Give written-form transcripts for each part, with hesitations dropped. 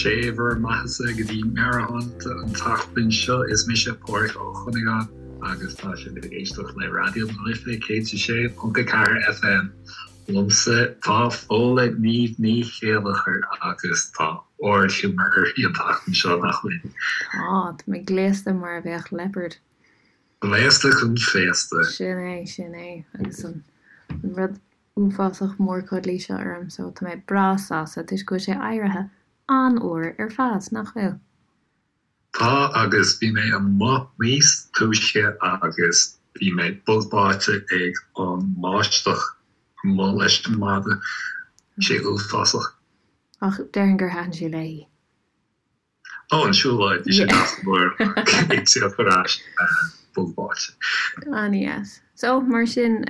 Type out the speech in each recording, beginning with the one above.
Sé bhur mbeathasa go dtí Meabhairshláinte an tseachtain seo. Is mise Páraic Ó Cuinneagáin agus tá sibh ag éisteacht le Raidió na Life 106.4 FM. Liomsa tá Fódhla Niamh Ní Chéilleachair agus tá ardghiúmar uirthi an tseachtain seo, nach bhfuil? Tá, tá mé gléasta mar a bheadh leopard. Gléasta chun féasta. Sin é, sin é. Agus an rud uafásach mór cuddly seo orm so tá mé breá sásta toisc go bhfuil sé éirithe an-fhuar ar fad, nach bhfuil? Tá agus bhí mé amuigh níos túisce agus bhí mé bog báite ag an mbáisteach amuigh leis an mada. Bhí sé uafásach. Ach déarfainn gur thaitin sé léi. Ó, an siúlóid, bhí sé deas go leor ag tíocht ar ais bog báite. An-deas. So, mar sin,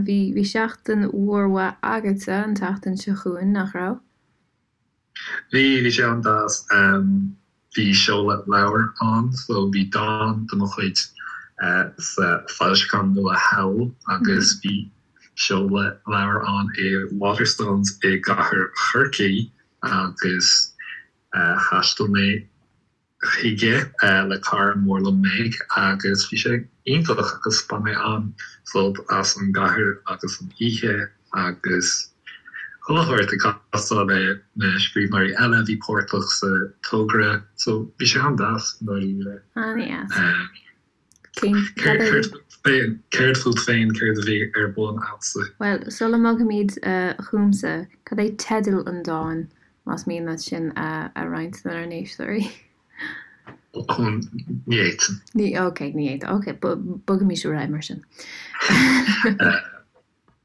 bhí, bhí seachtain mhór mhaith agatsa an tseachtain seo chugainn, nach raibh? Bhí, bhí sé an-deas. Bhí seoladh leabhair ann, so bhí dán de mo chuid sa foilseachán nua Howl agus bhí seoladh leabhair ann i Waterstones i gcathair Chorcaí agus Thaistil mé chuige le cara mór liom Meg agus bhí sé iontach agus bhain mé an-sult as an gcathair agus an oíche agus chuile shórt ag castáil le na scríbhneoirí eile a bhí páirteach sa togra so bhí sé an-deas i ndáiríre. An-deas. Céard fút féin, céard a bhí ar bun agatsa? Bhuel, sula mbogfaimid chugamsa, cad é teideal an dáin, más mian leat sin a roinnt lenár n-éisteoirí? Ní fhéadfainn. Ní, ok, ní fhéadfá. Ok, bogaimis ar aghaidh mar sin.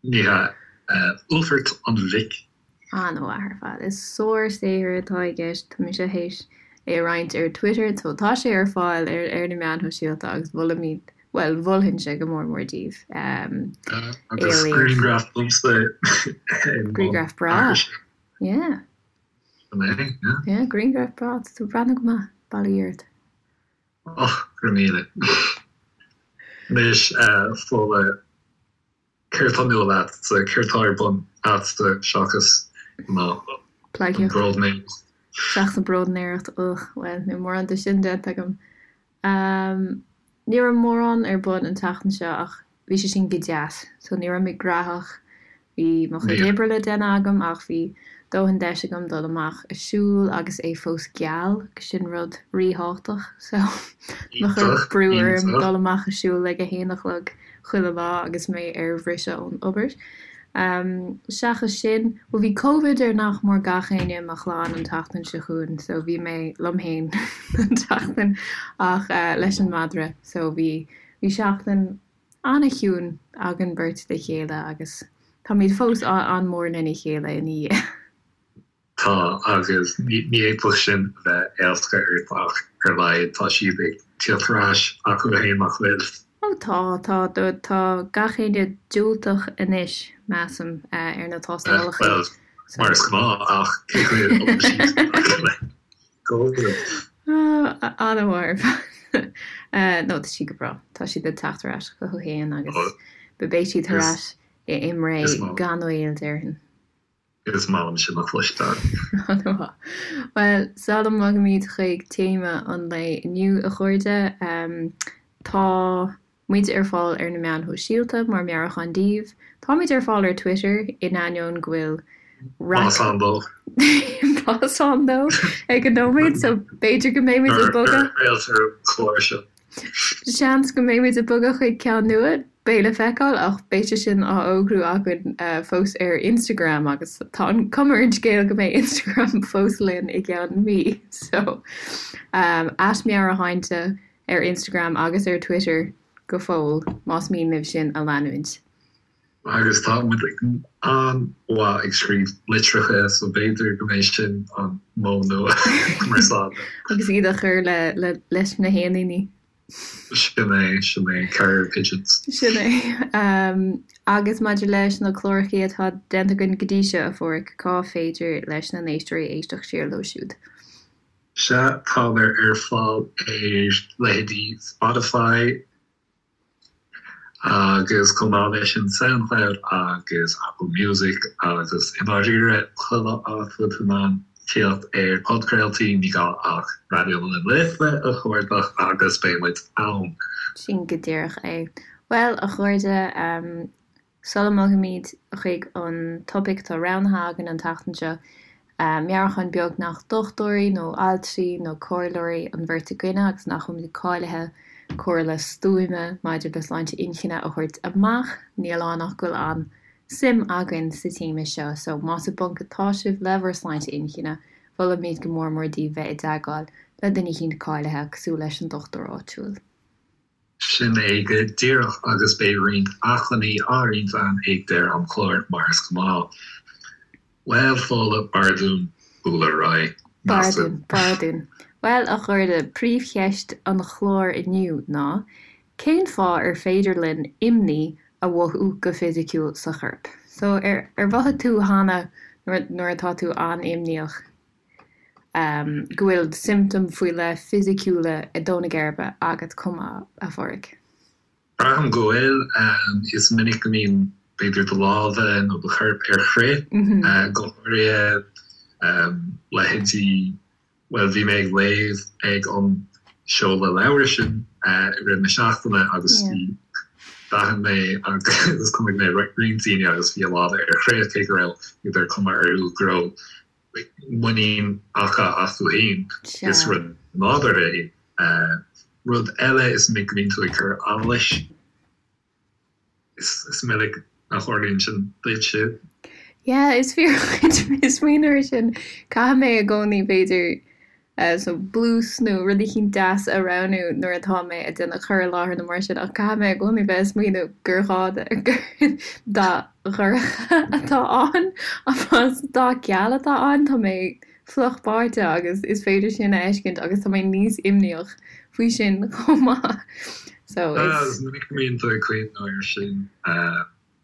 Ní hea. Uallfairt an Mhic. An-mhaith ar fad. Is sár-saothar atá i gceist. Tá mise théis é a roinnt ar Twitter so tá sé ar fáil ar ar na meáin shóisialta agus molaimid, bhuel, mholfainnse go mór mór daoibh é a Agus léamh. grianghraf domsa i mbun Grianghraf breá. aithrise. Yeah. Sin é, yeah. Yeah, grianghraf breá. Tá tú ag breathnú go maith. Bail ó Dhia ort. Och, go raibh míle. Anois, a Fódhla, Céard tá nua leatsa? Céard tá ar bun agatsa seachas an bróidnéireacht? Seachas an bróidnéireacht, ugh, bhuel, níl mórán de sin déanta agam. Ní raibh mórán ar bun an tseachtain seo ach bhí sé sin go deas, so ní raibh mé gnóthach Bhí mo chuid oibre le déanamh agam ach bhí dóthain deis agam dul amach a siúl agus é fós geal, agus sin rud ríthábhachtach. So, mo chuir brú orm dul amach a siúl ag a haon a chlog chuile lá agus mé ar bhriseadh ón obair. Seachas sin, bhuel bhí Covid ar nach mór gach éinne i mo chlann an tseachtain seo chugainn so bhí mé liom féin an tseachtain ach leis an madra so bhí bhí seachtain an-chiúin againn beirt le chéile agus táimid fós an-mhór lena chéile ina dhiaidh. Tá, agus ní fhéadfadh sin a bheith éasca ort ach ar a laghad tá siad ag tíocht ar ais acu féin nach bhfuil? Ó tá, tá, tá gach éinne diúltach anois, measaim, ar na tástálacha. Bhuel, mar is gnáth, ach cé chaoi a bhfuil siad le Covid? An-mhaith ar fad. No, tá siad go breá. Tá siad ag teacht ar ais chucu féin agus beidh siad ar ais i mBré gan mhoill, déarfainn. Is maith liom sin a chloisteáil. An-mhaith. Bhuel, sula mbogaimid chuig téama an lae inniu, a chairde, tá muid ar fáil ar na meáin shóisialta mar Meabhrúchán Daoibh. Táimid ar fáil ar Twitter, in ainneoin go bhfuil raic. Más ann dó. Más ann dó ag an nóiméad, so b'fhéidir go mbeimid ag bogadh. Nuair a chraoltar an clár seo. Seans go mbeimid ag bogadh chuig ceann nua, beidh le feiceáil, ach beidh sé sin á fhógrú againn fós ar Instagram agus tá an cuma ar an scéal go mbeidh Instagram fós linn i gceann mí. So, at Meabhairshláinte ar Instagram agus ar Twitter go fóill, más mian libh sinn a leanúint. Agus tá muid an-mhaith ag scríobh litreacha so b'fhéidir go mbeidh sin an modh nua cumarsáide. Agus iad a chur le leis na héiníní. Sin é, sin é, carrier pigeons. Sin é. Agus maidir leis na clárachaí atá déanta againn go dtí seo, a Pháraic, cá féidir leis na n-éisteoirí éisteacht siar leo siúd? Sea, táthar ar fáil ar leithéidí Spotify, Agus chomh maith leis sin Soundcloud agus Apple Music agus i ndáiríre chuile áit a bhfuil tú in ann. Tíocht ar podchraoltaí, ní gá ach Raidió na Life a chuardach agus beidh muid ann. Sin go díreach é. Bhuel, a chairde, sula mbogaimid chuig an topaic atá roghnaithe againn an tseachtain seo, meabhrúchán beag nach dochtúirí nó altraí nó comhairleoirí an bheirt againne agus nach bhfuilimid cáilithe comhairle stuama maidir le sláinte inchinne a thabhairt amach, níl ann ach go bhfuil an suim againn sa téama seo so más i bponc atá sibh le bhur sláinte inchinne, mholfaimid go mór mór daoibh bheith i dteagmháil le duine eicínt cáilithe cosúil leis an dochtúir áitiúil. Sin é go díreach agus beidh roinnt acmhainní á roinnt againn ag deireadh an chláir mar is gnáth. Bhuel, Fódhla, b'fhearr dúinn bualadh ar aghaidh, B'fhearr dúinn, measaim. b'fhearr dúinn. Bhuel, a chairde, príomhcheist an chláir inniu ná, Cén fáth ar féidir linn imní a mhothú go fisiciúil sa chorp? So, ar ar mhothaigh tú cheana nuair nuair atá tú an-imníoch go bhfuil siomptóim faoi leith fisiciúla ag dó na geirbe agat chomh maith, a Phádraig? Braithim go bhfuil. Is minic go mbíonn b'fhéidir do lámha nó do chorp ar crith, go háirithe leithéidí Bhuel, bhí mé ag léamh ag an seoladh leabhair sin i rith na seachtaine agus bhí, d'aithin mé agus chonaic mé roinnt daoine agus bhí a lámha ar crith cé go raibh b'fhéidir cuma orthu go raibh muinín acu astu féin. Is rud nádúrtha é. Rud eile is minic go mbíonn tú ag cur allais. Is minic a tharlaíonn sin duitse. Yeah, is fíor dhuit, smaoineamh air sin. Caithfidh mé i gcónaí, b'fhéidir, so blús nó rud eicínt deas a roghnú nuair atá mé ag déanamh cur i láthair nó mar sin, ach caithfidh mé i gcónaí bheith ag smaoineamh gur ghá gur dath dhorcha atá ann, más dath geal atá ann, tá mé fliuch báite agus is féidir sin a fheiscint agus tá mé níos imníoch faoi sin chomh maith. So is. Is minic go mbíonn tú ag cuimhneamh air sin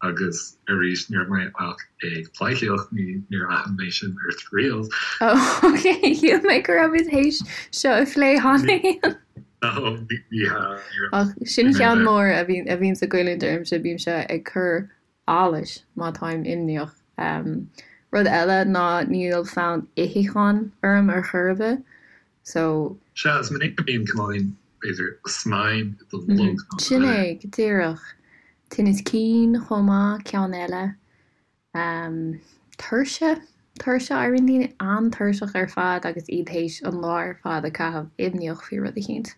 agus arís ní raibh mé ach ag pleidhcíocht, ní níor aithin mé sin ort riamh. Oh ok, shíl mé go raibh muid théis seo a phlé cheana féin. No, ní hea, ní raibh. Ach sin ceann mór a bhíonn a bhíonns ag goilliúint ormsa, bímse ag cur allais má táim imníoch. Rud eile ná níl fonn itheacháin orm ar chor ar bith so. Sea, is minic go mbíonn cineáilín, b'fhéidir, snaidhm i do bholg nó do Sin é, go díreach. Tinneas cinn chomh maith, ceann eile. Tuirse, tuirse, éiríonn daoine an-tuirseach ar fad agus iad théis an lá ar fad a caitheamh imníoch faoi rud eicínt.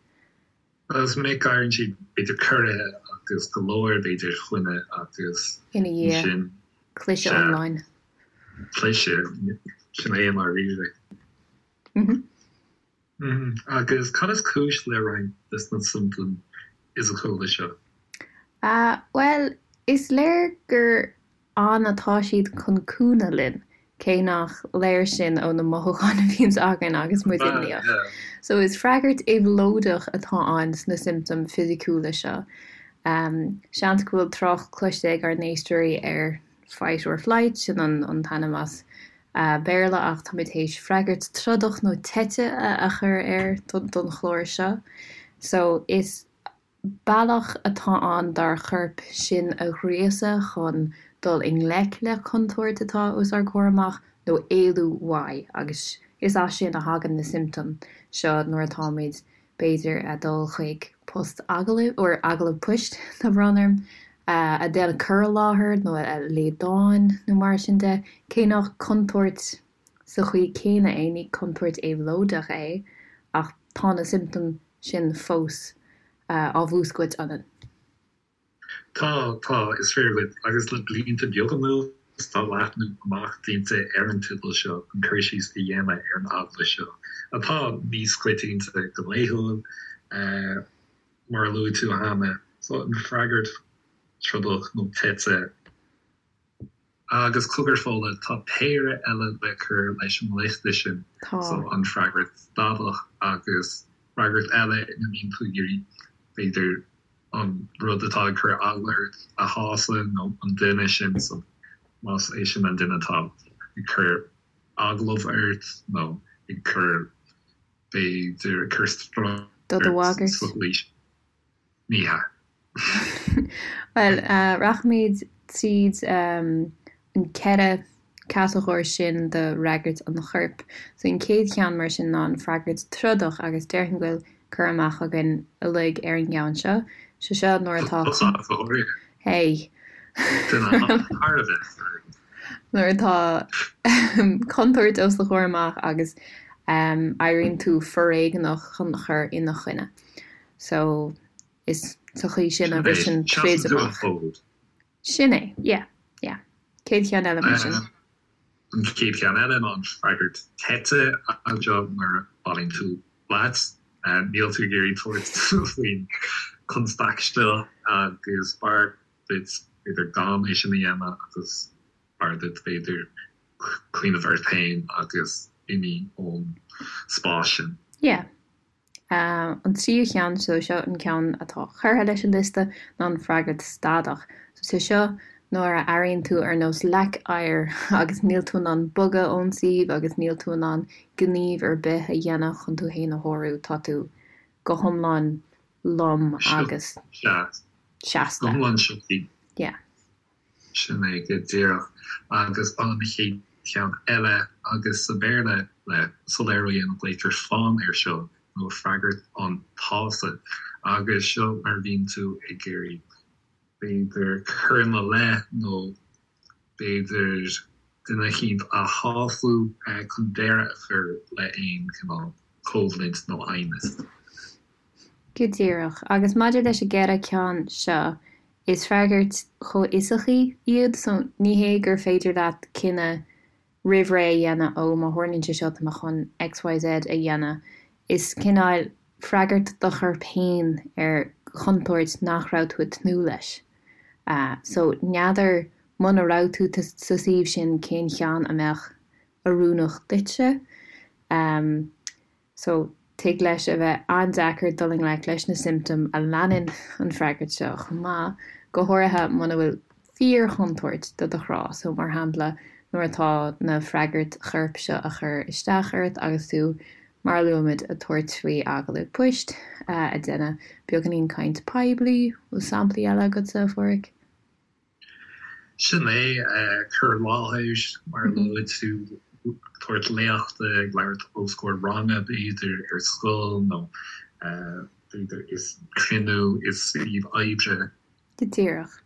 Is minic go éiríonn siad b'fhéidir corraithe agus go leor b'fhéidir choinne agus Ina dhiaidh, ansin cliseadh sea, iomlán. cliseadh, sin é i ndáiríre. Agus cad is cúis le roinnt de na siomptóim fhisiciúla seo? Bhuel, is léir gur ann atá siad chun cúnamh linn, cé nach léir sin ó na mothúcháin a bhíonns againn agus muid imníoch. So is freagairt éabhlóideach atá ann sna siomptóim fisiciúla seo. Seans go bhfuil trácht cloiste ag ár n-éisteoirí ar fight or flight, sin an t-ainm as Béarla ach táimid théis freagairt trodach nó teite a chur air don chlár seo. So is Bealach atá ann dár chorp sinn a ghríosadh chun dul i ngleic le contúirt atá os ár gcomhair amach nó éalú uaidh agus is as sin a thagann na siomptóim seo nuair atáimid, b'fhéidir, ag dul chuig post agallaimh, or agallamh poist, tá brón orm, ag déanamh cur i láthair nó ag léamh dáin nó mar sin de, cé nach contúirt sa chaoi céanna é, ní contúirt éabhlóideach é ach tá na siomptóim sin fós á mhúscailt ionainn. Tá, tá, is fíor dhuit, agus le blianta beaga anuas tá leathnú amach déanta ar an teideal seo chun cur síos a dhéanamh ar an eagla seo, atá níos coitianta go laethúil, mar a luaigh tú cheana, so an freagairt trodach nó teite. Agus cogar Fódhla, tá péire eile le cur leis an liosta sin, Tá. so an freagairt stadach agus freagairt eile ina mbíonn tú ag iarraidh, b'fhéidir, an rud atá ag cur eagla ort a shásamh nó an duine sin, so más é sin an duine atá ag cur agallamh ort nó ag cur, b'fhéidir, ag cur stró Do do ort bhagairt. sa gcaoi sin. Ní hea. Bhuel, rachaimid tríd an ceithre. catagóir sin de fhreagairt an choirp. So an chéad cheann mar sin ná an freagairt trodach agus déarfainn go bhfuil cur amach againn uilig ar an gceann seo. Sé seo nuair atá. Tusa go háirithe. Hey. Duine thar a bheith foirfe. Nuair atá contúirt os do chomhair amach agus éiríonn tú foréigneach chun cur ina choinne. So is sa chaoi sin a bhriseann troid amach. Sin é, yeah, yeah. Céad cheann eile mar sin. An chéad cheann eile ná an freagairt teite anseo nuair a bhailíonn tú leat. Níl tú ag iarraidh tabhairt faoin chonstaic seo agus b'fhearr duit b'fhéidir gan é sin a dhéanamh agus b'fhearr duit b'fhéidir cuimhneamh ort féin agus imigh ón spás sin. Yeah. An tríú cheann, so seo an ceann atá curtha leis an liosta, ná an freagairt stadach. So sé seo nuair a airíonn tú ar nós leac oighir agus níl tú in ann bogadh ón suíomh agus níl tú in ann gníomh ar bith a dhéanamh chun tú féin a shárú, tá tú go hiomlán lom agus seasta. Go hiomlán sioctha. Yeah. Sin é go díreach. Agus an chéad cheann eile, agus sa Bhéarla, le soiléiriú a dhéanamh, glaoitear fawn air seo, nó freagairt an tsásaimh. Agus seo mar a bhíonn tú ag iarraidh, b'fhéidir, cur ina leith nó b'fhéidir duine eicínt a shású chun deireadh a chur le aon chineál coimhlint nó aighneas. Go díreach. Agus maidir leis an gceithre ceann seo, is freagairt chomhfhiosacha iad, so ní hé gur féidir leat cinneadh roimh ré a dhéanamh, ó má tharlaíonn sé seo tá mé chun XYZ a dhéanamh. Is cineál freagairt do chorp féin ar chontúirt nach raibh tú ag tnúth leis. So n'fheadar muna raibh tú sa suíomh sin cén cheann a mbeadh oiriúnach duitse. So, tig leis a bheith an-deacair dul i ngleic leis na siomptóim a leanann an freagairt seo chomh maith, go háirithe muna bhfuil fíor-chontúirt do do chrá. So, mar shampla, nuair atá na freagairt choirp seo a chur isteach ort agus tú, mar a luaigh muid, ag tabhairt faoi agallamh poist, ag déanamh beagáinín caint poiblí, bhfuil samplaí eile agatsa, a Pháraic? Sin é, cur i láthair, mar a luaigh tú, tabhairt léachta, ag labhairt os comhair ranga, b'fhéidir, ar scoil nó b'fhéidir i cruinniú i suíomh oibre. Go díreach,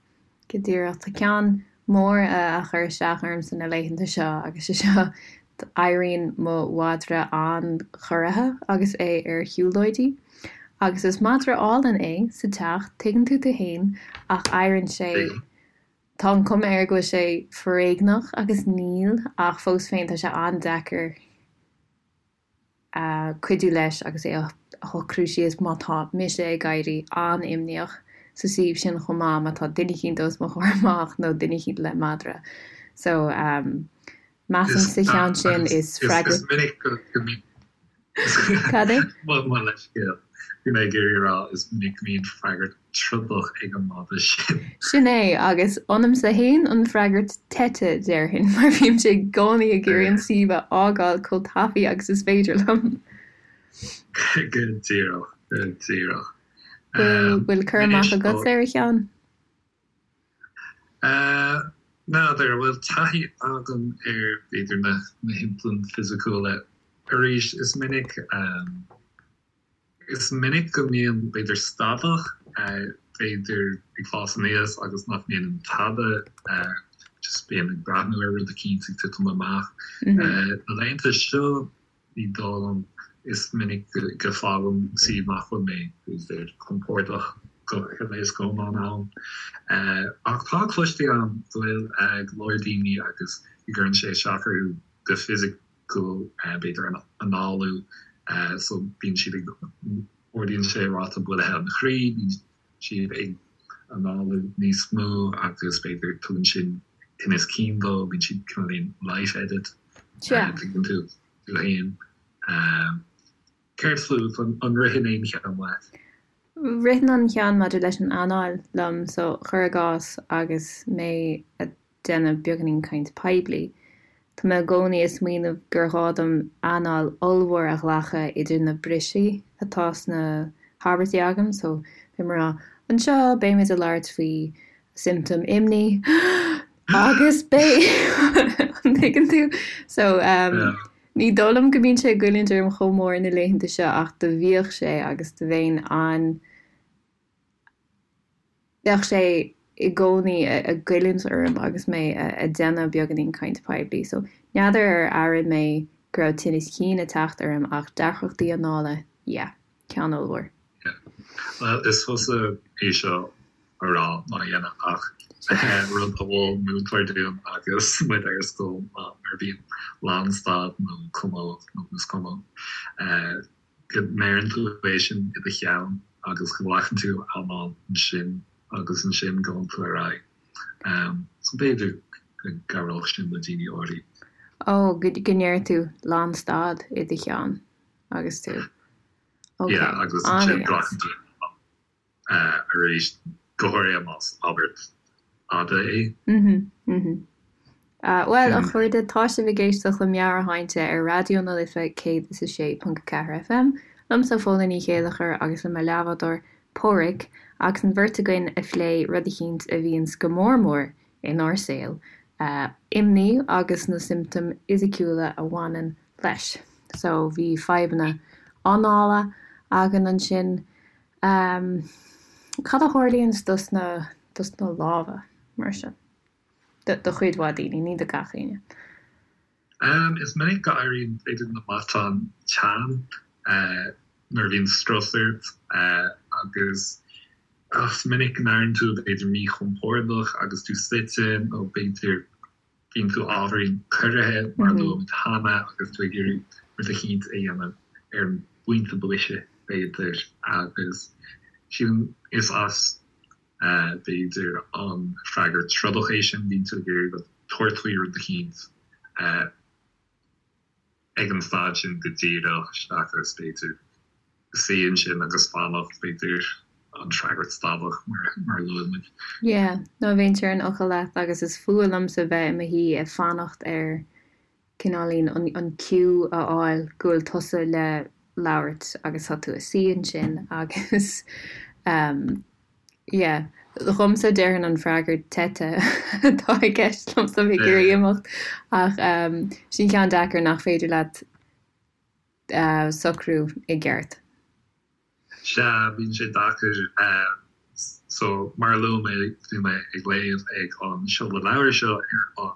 go díreach. Tá ceann mór a chuir isteach ormsa na laethanta seo agus sé seo, éiríonn mo mhadra an-chorraithe agus é ar shiúlóidí. Agus is madra álainn é sa teach, tuigeann tú tú fhéin, ach éiríonn sé, tá an cuma air go bhfuil sé foréigneach agus níl, ach fós féin tá sé an-deacair cuidiú leis agus é a shocrú síos má tá mise ag éirí an-imníoch sa suíomh sin chomh maith, má tá duine eicínt os mo chomhair amach nó duine eicínt le madra. So, measaim sa cheann sin is freagra. Is minic go mbíonn. Cad é? Mo leithscéal. Bhí mé ag iarraidh a rá is minic go mbíonn freagairt trodach ag an madra sin. Sin é, agus ionamsa fhéin an freagairt teite, déarfainn, mar bímse i gcónaí ag iarraidh an suíomh a fhágáil chomh tapaidh agus is féidir liom. Go díreach, go díreach. Bhfuil cur amach agatsa ar a cheann? N'fheadar an bhfuil taithí agam ar, b'fhéidir, na shiomptóim fisiciúla. Arís, is minic, is minic go mbíonn, b'fhéidir, stadach, b'fhéidir, ag fás aníos agus nach ndéanaim tada, just bím ag breathnú ar rud eicínt ag titim amach. Na laethanta seo, Ní dóigh liom. Is minic go bhfágaim suíomh nach bhfuil mé, b'fhéidir, compordach go huile is go hiomlán ann. Ach tá cloiste agam go bhfuil go leor daoine agus go gcuireann sé isteach orthu go fisiciúil, b'fhéidir an análú, so bíonn siad ag, ardaíonn sé ráta buailthe an chroí, bíonn siad ag análú níos mó agus b'fhéidir tugann sin tinneas cinn dóibh, bíonn siad cineáilín light-headed, tuigeann tú, tú fhéin. Céard fút, an ritheann aon cheann leat? Ritheann an ceann maidir leis an anáil liom, so cuir i gcás agus mé ag déanamh beagáinín caint poiblí. Tá mé i gcónaí ag smaoineamh gur ghá dom anáil ollmhór a ghlacadh idir na brisí atá sna habairtí agam, so beidh mé ag rá, anseo beimid ag labhairt faoi siomptóim imní agus beidh. Tuigeann tú? So ní dóigh liom go mbíonn sé ag goilliúint orm chomh mór na laethanta seo ach do bhíodh sé agus do bheinn an, bheadh sé i gcónaí ag goilliúint orm agus mé ag déanamh beagáinín caint poiblí. So n'fheadar ar airigh mé go raibh tinneas cinn ag teacht orm ach deacrachtaí anála, yeah, ceann ollmhór. Yeah. Bhuel, is fusa é seo a rá ná a dhéanamh ach rud a mhol múinteoir dúinn agus muid ar scoil ná nuair a bhíonn lánstad nó cuma nó is cuma go ndeireann tú é sin i do cheann agus go nglacann tú anáil ansin agus ansin gabhann tú ar aghaidh. So b'fhéidir go gcabhródh sin le daoine áirithe. Ó, go ndeir tú lánstad i do cheann agus tú. Ok, Yeah, agus ansin glacann tú arís, go háirithe más abairt fhada é. Mhm, mhm. Bhuel, a chairde, tá sibh ag éisteacht le Meabhairshláinte ar Raidió na Life 106.4 FM, liomsa Fódhla Ní Chéilleachair agus le mo leathbhádóir Páraic, agus an bheirt againn ag plé rud eicínt a bhíonns go mór mór inár saol, imní agus na siomptóim fhisiciúla a bhaineann leis. So, bhí fadhbanna anála againn ansin. Cad a tharlaíonns dos na, dos na lámha, mar sin? Do, do chuid mhaith daoine, ní do gach éinne. Is minic go éiríonn, b'fhéidir, na matáin teann nuair a bhíonn strus ort agus is minic go n-airíonn tú b'fhéidir míchompordach agus tú suite nó b'fhéidir bíonn tú ábhairín corraithe mar a luaigh muid cheana agus tú ag iarraidh rud eicínt a dhéanamh ar an bpointe boise, b'fhéidir, agus sílim is as, b'fhéidir, an freagairt trodach é sin, bíonn tú ag iarraidh rud, tabhairt faoi rud eicínt ag an staid sin go díreach seachas, b'fhéidir, suí ansin agus fanacht, b'fhéidir, an freagairt stadach mar a luaigh muid. Yeah, no bheinnse ar an fhocal leat agus is fuath liomsa bheith i mo shuí ag fanacht ar cineáilín an an cue a fháil go bhfuil tusa le labhairt agus tá tú ag suí ansin agus ehm yeah, dhomsa déarfainn an freagairt teite atá i gceist liomsa bheith ag iarraidh imeacht ach ehm sin ceann deacair nach féidir leat socrú i gceart. Sea, bíonn sé deacair. So, mar a luaigh mé, bhí mé ag léamh ag an seoladh leabhair seo ar an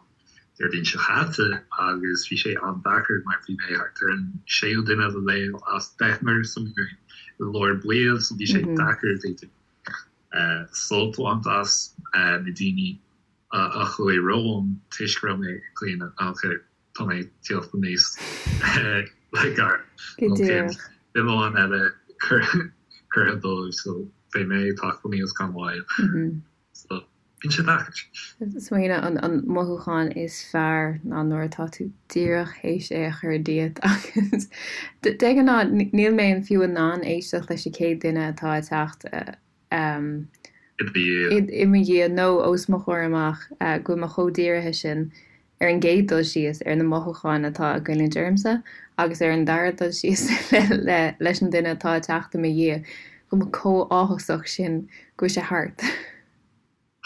Déardaoin seo chaite agus bhí sé an-deacair mar bhí mé thart ar an séú duine le léamh as deichniúr so bhí mé i lár baill so bhí sé deacair b'fhéidir sult a bhaint as na daoine a chuaigh romham toisc go raibh mé ag caoineadh ok Tá mé ag tíocht aníos le gar. Go díreach. Duine amháin eile curtha dóibh so beidh mé ag teacht aníos gan mhoill. So bíonn sé deacair. Smaoineamh an mothúchán is fearr ná nuair atá tú díreach théis é a chur díot agus de ghnáth níl mé fiú in ann éisteacht leis an chéad duine atá ag teacht i mo dhiaidh nó os mo chomhair amach go bhfuil mé chomh dírithe sin ar an gcéad dul síos, ar na mothúcháin atá ag goilliúint ormsa agus ar an dara dul síos leis an duine atá ag teacht i mo dhiaidh, go bhfuil mé chomh áthasach sin go bhfuil sé thart.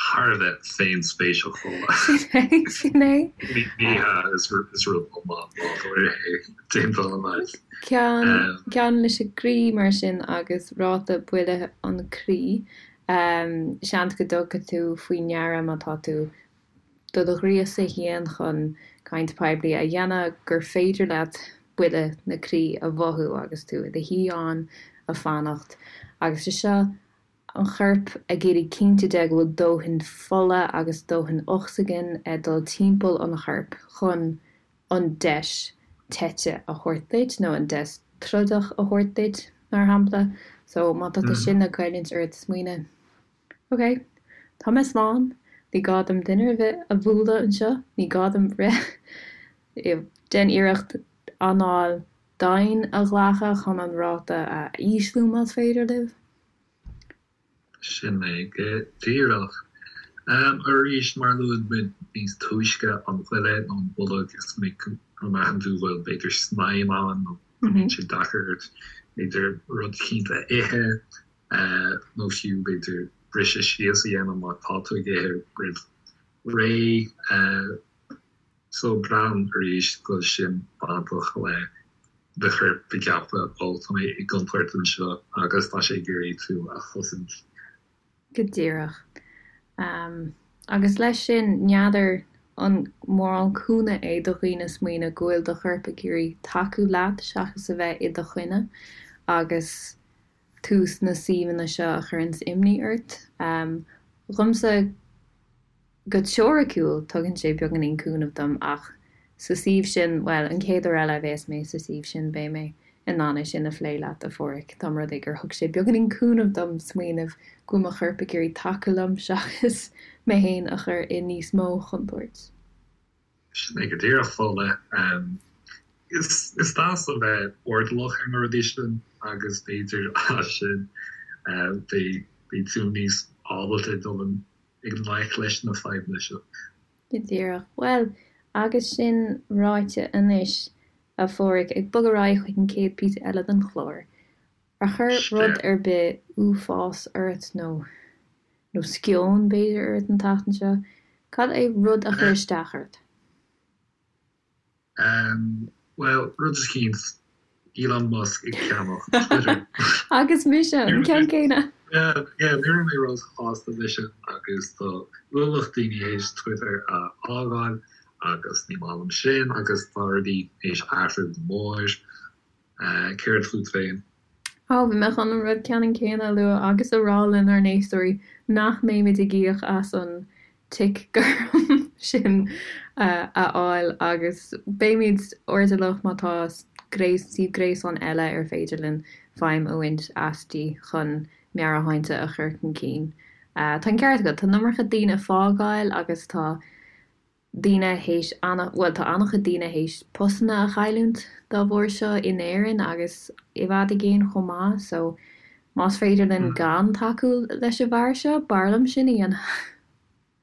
Thar a bheith féinspéiseach chomh maith. Sin é, sin é. Ní hea, is rud iomlán nádúrtha é, déanta an leid. Ceann, ceann leis an gcroí mar sin agus ráta buille an chroí. Seans go dtugfaidh tú faoi ndeara má tá tú do do ghríosadh féin chun caint poiblí a dhéanamh gur féidir leat buille na croí a mhothú agus tú i do shuí ann ag fanacht agus sé seo an chorp ag iarraidh cinnte de go bhfuil dóthain fola agus dóthain ocsaigin ag dul timpeall an choirp chun an deis teite a thabhairt duit nó an deis trodach a thabhairt duit mar shampla so má tá sin ag goilliúint ort smaoineamh Ok, tá mé slán, ní gá dom duine ar bith a bhualadh anseo, ní gá dom rith. Déan iarracht anáil domhain a ghlacadh chun an ráta a ísliú más féidir libh. Sin é go díreach. Arís, mar a luaigh muid níos túisce, an ghoile nó an bolg, is minic go mbraitheann tú go bhfuil b'fhéidir snaidhm ann nó go mbíonn sé deacair ort b'fhéidir rud eicínt a ithe. nó fiú b'fhéidir briseadh síos a dhéanamh má tá tú ag ithe roimh ré. So braithim arís go bhfuil sin bainteach le do chorp ag ceapadh, ó tá mé i gcontúirt anseo agus tá sé ag iarraidh tú a chosaint. Go díreach. Agus leis sin, n'fheadar an mórán cúnamh é do dhaoine smaoineamh go bhfuil do chorp ag iarraidh tacú leat seachas a bheith i do choinne agus tú sna suíomhanna seo a chuireanns imní ort. Dhomsa, Go teoiriciúil, tugann sé beagáinín cúnaimh dom ach sa suíomh sin, bhuel, an chéad uair eile a bheas mé sa suíomh sin beidh mé in ann é sin a phlé leat, a Pháraic, dá mba rud é gur thug sé beagáinín cúnaimh dom smaoineamh go bhfuil mo chorp ag iarraidh tacú liom seachas mé féin a chur i níos mó chontúirt. Sin é go díreach, Fódhla. Is deas a bheith airdeallach ar na rudaí sin agus b'fhéidir as sin beidh tú níos ábalta dul i ngleic leis na fadhbanna seo. Go díreach. Bhuel, agus sin ráite anois, a Pháraic, ag bogadh ar aghaidh chuig an chéad píosa eile den chlár, ar chuir rud ar bith uafás ort nó, nó sceon, b'fhéidir, ort an tseachtain seo? Cad é rud a chuir isteach ort? Bhuel, rud eicínt, Elon Musk ag ceannach Twitter. Agus mise, an ceann céanna! Yeah, yeah, ní raibh mé róshásta leis sin agus tá ualach daoine théis Twitter a fhágáil agus ní maith liom sin agus tá rudaí théis athrú go mór. Céard fút féin? Ó, bhí mé chun an rud ceannann céanna a lua agus a rá lenár n-éisteoirí nach mbeimid ag íoc as an tic gorm sin a fháil agus beimid airdeallach má tá suíomh gréasáin eile ar féidir linn feidhm a bhaint aisti chun meabhairshláinte a chur chun cinn. Tá an ceart agat, tá an iomarca daoine ag fágáil agus tá daoine théis ana, bhuel tá an-chuid daoine théis postanna a chailliúint dá bharr seo in Éirinn agus i bhfad i gcéin chomh maith so más féidir linn gan tacú leis an bhfear seo, b'fhearr liom sin a dhéanamh.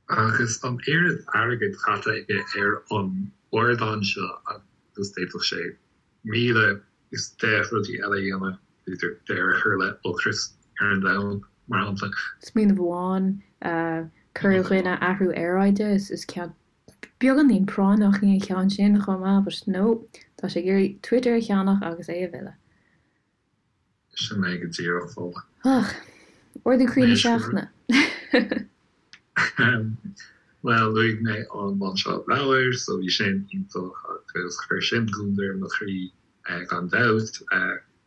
Agus an oiread airgid caite aige ar an ardán seo agus d'fhéadfadh sé 1010 rudaí eile a dhéanamh, b'fhéidir deireadh a chur le ocras ar an domhan, mar shampla. Smaoineamh amháin, cur i gcoinne athrú aeráide, is ceann beagáinín práinneach é an ceann sin chomh maith, but no, tá sé ag iarraidh Twitter a cheannach agus é a mhilleadh. Sin é go díreach, Fódhla. Ach, ardú croí na seachtaine. Bhuel, luaigh mé an lainseáil leabhair, so bhí sin iontach agus chuir sin gliondar ar mo chroí gan dabht.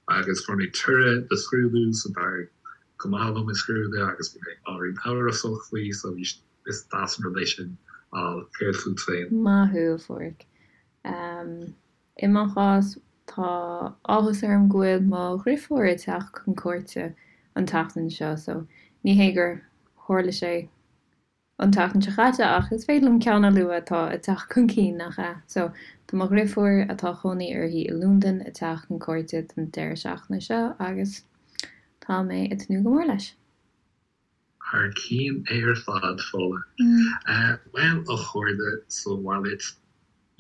Agus fuair mé toradh do scrúdú, so d'éirigh go maith liom i scrúdú agus bhí mé ábhairín amhrasach faoi, so bhí, is deas an rud é sin a fháil. Céard fút féin? Maith thú, a Pháraic. I mo chás, tá áthas orm go bhfuil mo dhrifiúr ag teacht chun cuairte an tseachtain seo, so ní hé gur tharla sé an tseachtain seo chaite ach is féidir liom ceann a lua atá ag teacht chun cinn, nach ea? So, tá mo dhrifiúr, atá cónaí uirthi i Londain, ag teacht chun cuairte don deireadh seachtaine seo agus tá mé ag tnúth go mór leis. Thar cinn ar fad, Fódhla. Bhuel, a chairde sa bhaile,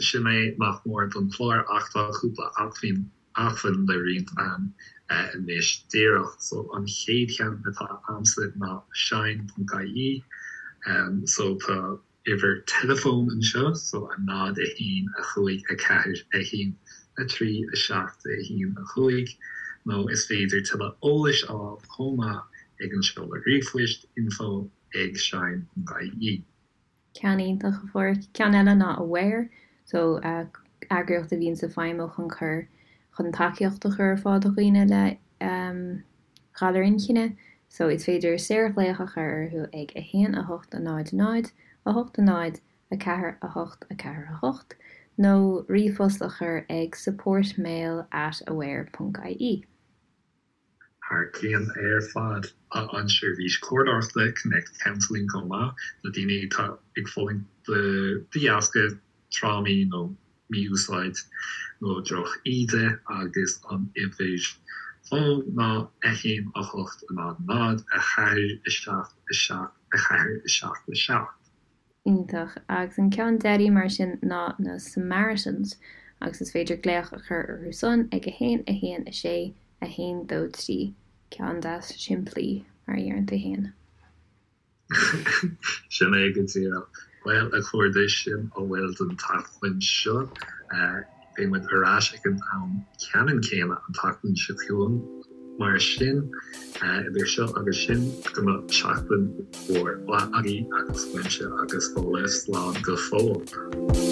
sin é nach mór don chlár ach tá cúpla acmhainn acmhainn le roinnt a'm anois díreach. So an chéad cheann atá a'msa ná shine.ie. So tá uimhir teileafóin anseo, so 0, 1, 5, 4, 1, 3, 7, 1, 5, nó is féidir tuilleadh eolais a fháil chomh maith ag an seoladh ríomhphoist info ag shine ponc ie. Ceann iontach, a Pháraic. Ceann eile ná Aware, so eagraíocht a bhíonns ag feidhmiú chun cur, chun tacaíocht a chur ar fáil do dhaoine le galar inchinne so is féidir saorghlaoch a chur orthu ag 1 8 0 0 8 0 4 8 4 8 nó ríomhphost a chur ag supportmail at aware ponc ie. Thar cionn ar fad. Tá an tseirbhís comhairleoireachta Connect Counselling chomh maith do daoine atá ag fulaingt de dheasca trámaí nó mí-úsáid nó droch-íde agus an uimhir fóin ná 1 8 0 0 4 7 7 4 7 7. Iontach. Agus an ceann deiridh mar sin ná na Samaritans agus is féidir glaoch a chur orthu san ag 1 1 6 1 2 3. Ceann deas simplí, mar a dheireann tú féin. Sin é go díreach. Bhuel, a chairde, sin a bhfuil don tseachtain seo. Beidh muid ar ais ag an am ceannann céanna an tseachtain seo chugainn. Mar sin, idir seo agus sin, go mbeadh seachtain mhór mhaith agaibh agus uaimse agus Fódhla, slán go fóill.